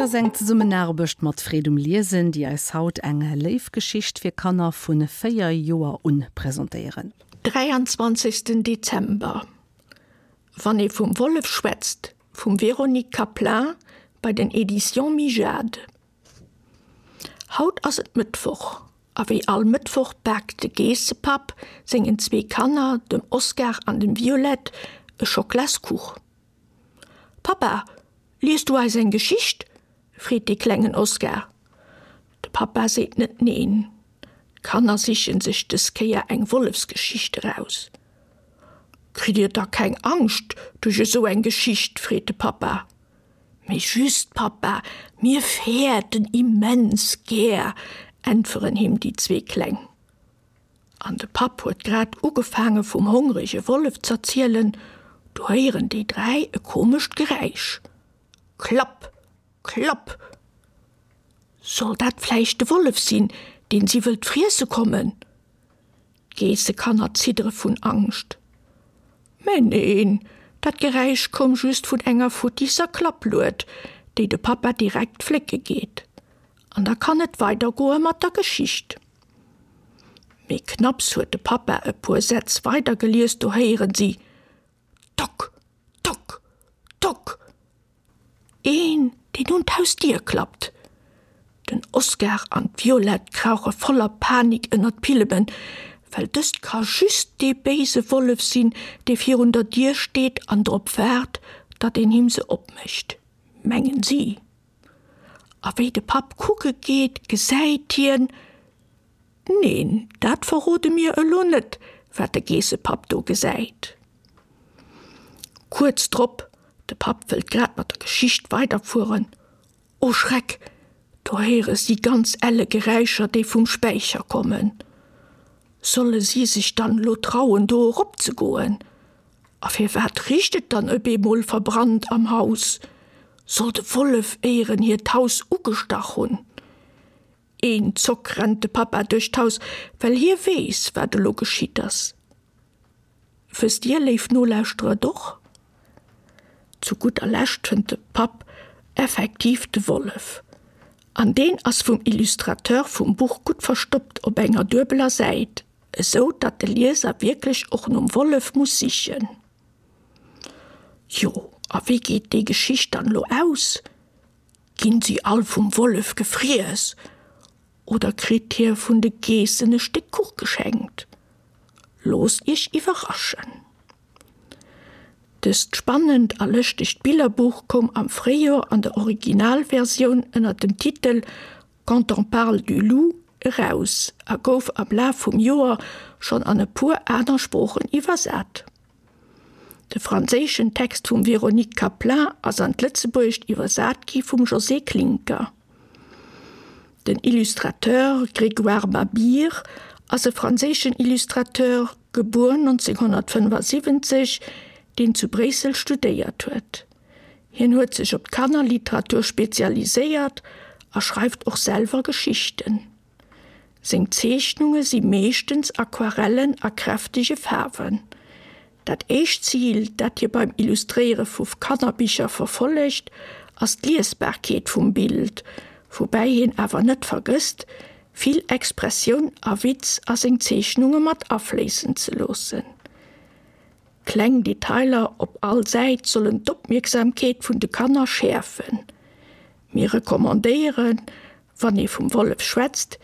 Dat ass eng Zesummenaarbecht mat Freed um Liesen, déi eis haut eng léif Geschicht fir Kanner vu 4 Joer un presentéieren. 23 Dezember, Wann ee vum Wollef schwätzt vum Véronique Caplin bei den Editions Mijade. Haut ass et Mëttwoch a wéi all Mëttwoch baakt de Geessepapp sengen zwee Kanner, dem Oscar an dem Violette, e Schoklaskuch. Pappa, lies du eis eng Geschicht? freet dee klengen Oscar. De Pappa seet net neen. D'Kanner sichen sech dës Kéier eng Wollefsgeschicht eraus. Kritt dir da keng Angscht duerch esou eng Geschicht? freet de Pappa. Mee just, Pappa, mir fäerten immens gär, äntweren him déi zwee Kleng. An de Papp huet grad ugefaange vum hongrege Wollef z'erzielen, du héieren déi 3 e komescht Geräisch. Klapp! Klapp! Soll dat vläicht de Wollef sinn, deen si wëllt friesse kommen? D'Geessekanner ziddere vun Angscht. Mä neen, dat Geräisch koum just vun enger futtisser Klapplued, déi de Pappa direkt flécke geet. An da kann et weidergoe mat der Geschicht. Mee knapps huet de Pappa e puer Sätz weidergelies, do héieren si, Tock! Tock! Tock! Een, deen un d'Hausdier klappt. Den Oscar an d'Violette krauche voller Panik ënner d'Pillemen, well dëst ka just dee béise Wollef sinn, dee virun der Dier steet an drop waart, datt een him se opmécht, mengen si. A wéi de Papp kucke geet, gesäit hien, Neen, dat verrode mir elo net, wat de Geessepapp do gesäit. Kuerz drop, de Papp wëllt grad mat der Geschicht weiderfueren, o Schreck, do héiere si ganz elle Geräischer, déi vum Späicher kommen. Solle si sech dann elo trauen, do eropzegoen? A firwat richt et dann op eemol verbrannt am Haus? Soll de Wollef éieren hiert Haus ugestach hunn? Een Zock rennt de Pappa duerch d'Haus, well hie weess, wat elo geschitt ass. Wësst Dir, léif Nolauschterer, et och? Zu gudder Lescht fënnt de Papp effektiv de Wollef. An deen ass vum Illustrateur vum Buch gutt verstoppt op enger duebeler Säit, esou datt de Lieser wierklech och nom Wollef muss sichen. Jo, a wéi geet déi Geschicht dann elo aus? Ginn si all vum Wollef gefriess oder kritt hie vun de Geessen e Stéck Kuch geschenkt? Loosst iech iwwerraschen! Dëst spannend a lëschtegt Billerbuch koum am Fréijoer an der Originalversioun ënner dem Titel Quand on parle du loup eraus a gouf am Laf vum Joer schonn an e puer aner Sproochen iwwersat. De franséischen Text vum Véronique Caplin ass an d'Lëtzebuergescht iwwersat gi vum Josée Klincker. Den Illustrateur Grégoire Mabire ass e franséischen Illustrateur, gebuer 1975, deen zu Bréissel studéiert huet. Hien huet sech op d'Kannerliteratur spezialiséiert a schreift och selwer Geschichten. Seng Zeechnunge si meeschtens Aquarellen a kräftege Faarwen. Dat éischt Zil, dat hie beim Illustréiere vu Kannerbicher verfollegt, ass d'Liesbarkeet vum Bild, woubäi hien awer net vergësst, vill Expressioun a Witz a seng Zeechnunge mat afléissen ze loossen. Kleng Detailer op all Säit sollen d'Opmierksamkeet vun de Kanner schäerfen. Mir recommandéieren, wann ee vum Wollef schwätzt,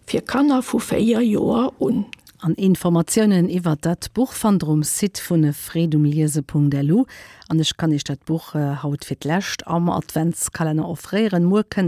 fir Kanner vu 4 Joer un. An Informatiounen iwwert dat Buch fannt der um Site vun freedumliese.lu. An ech kann iech dat Buch haut fir d'lescht am Adventskalenner offréieren. Muer kënnt.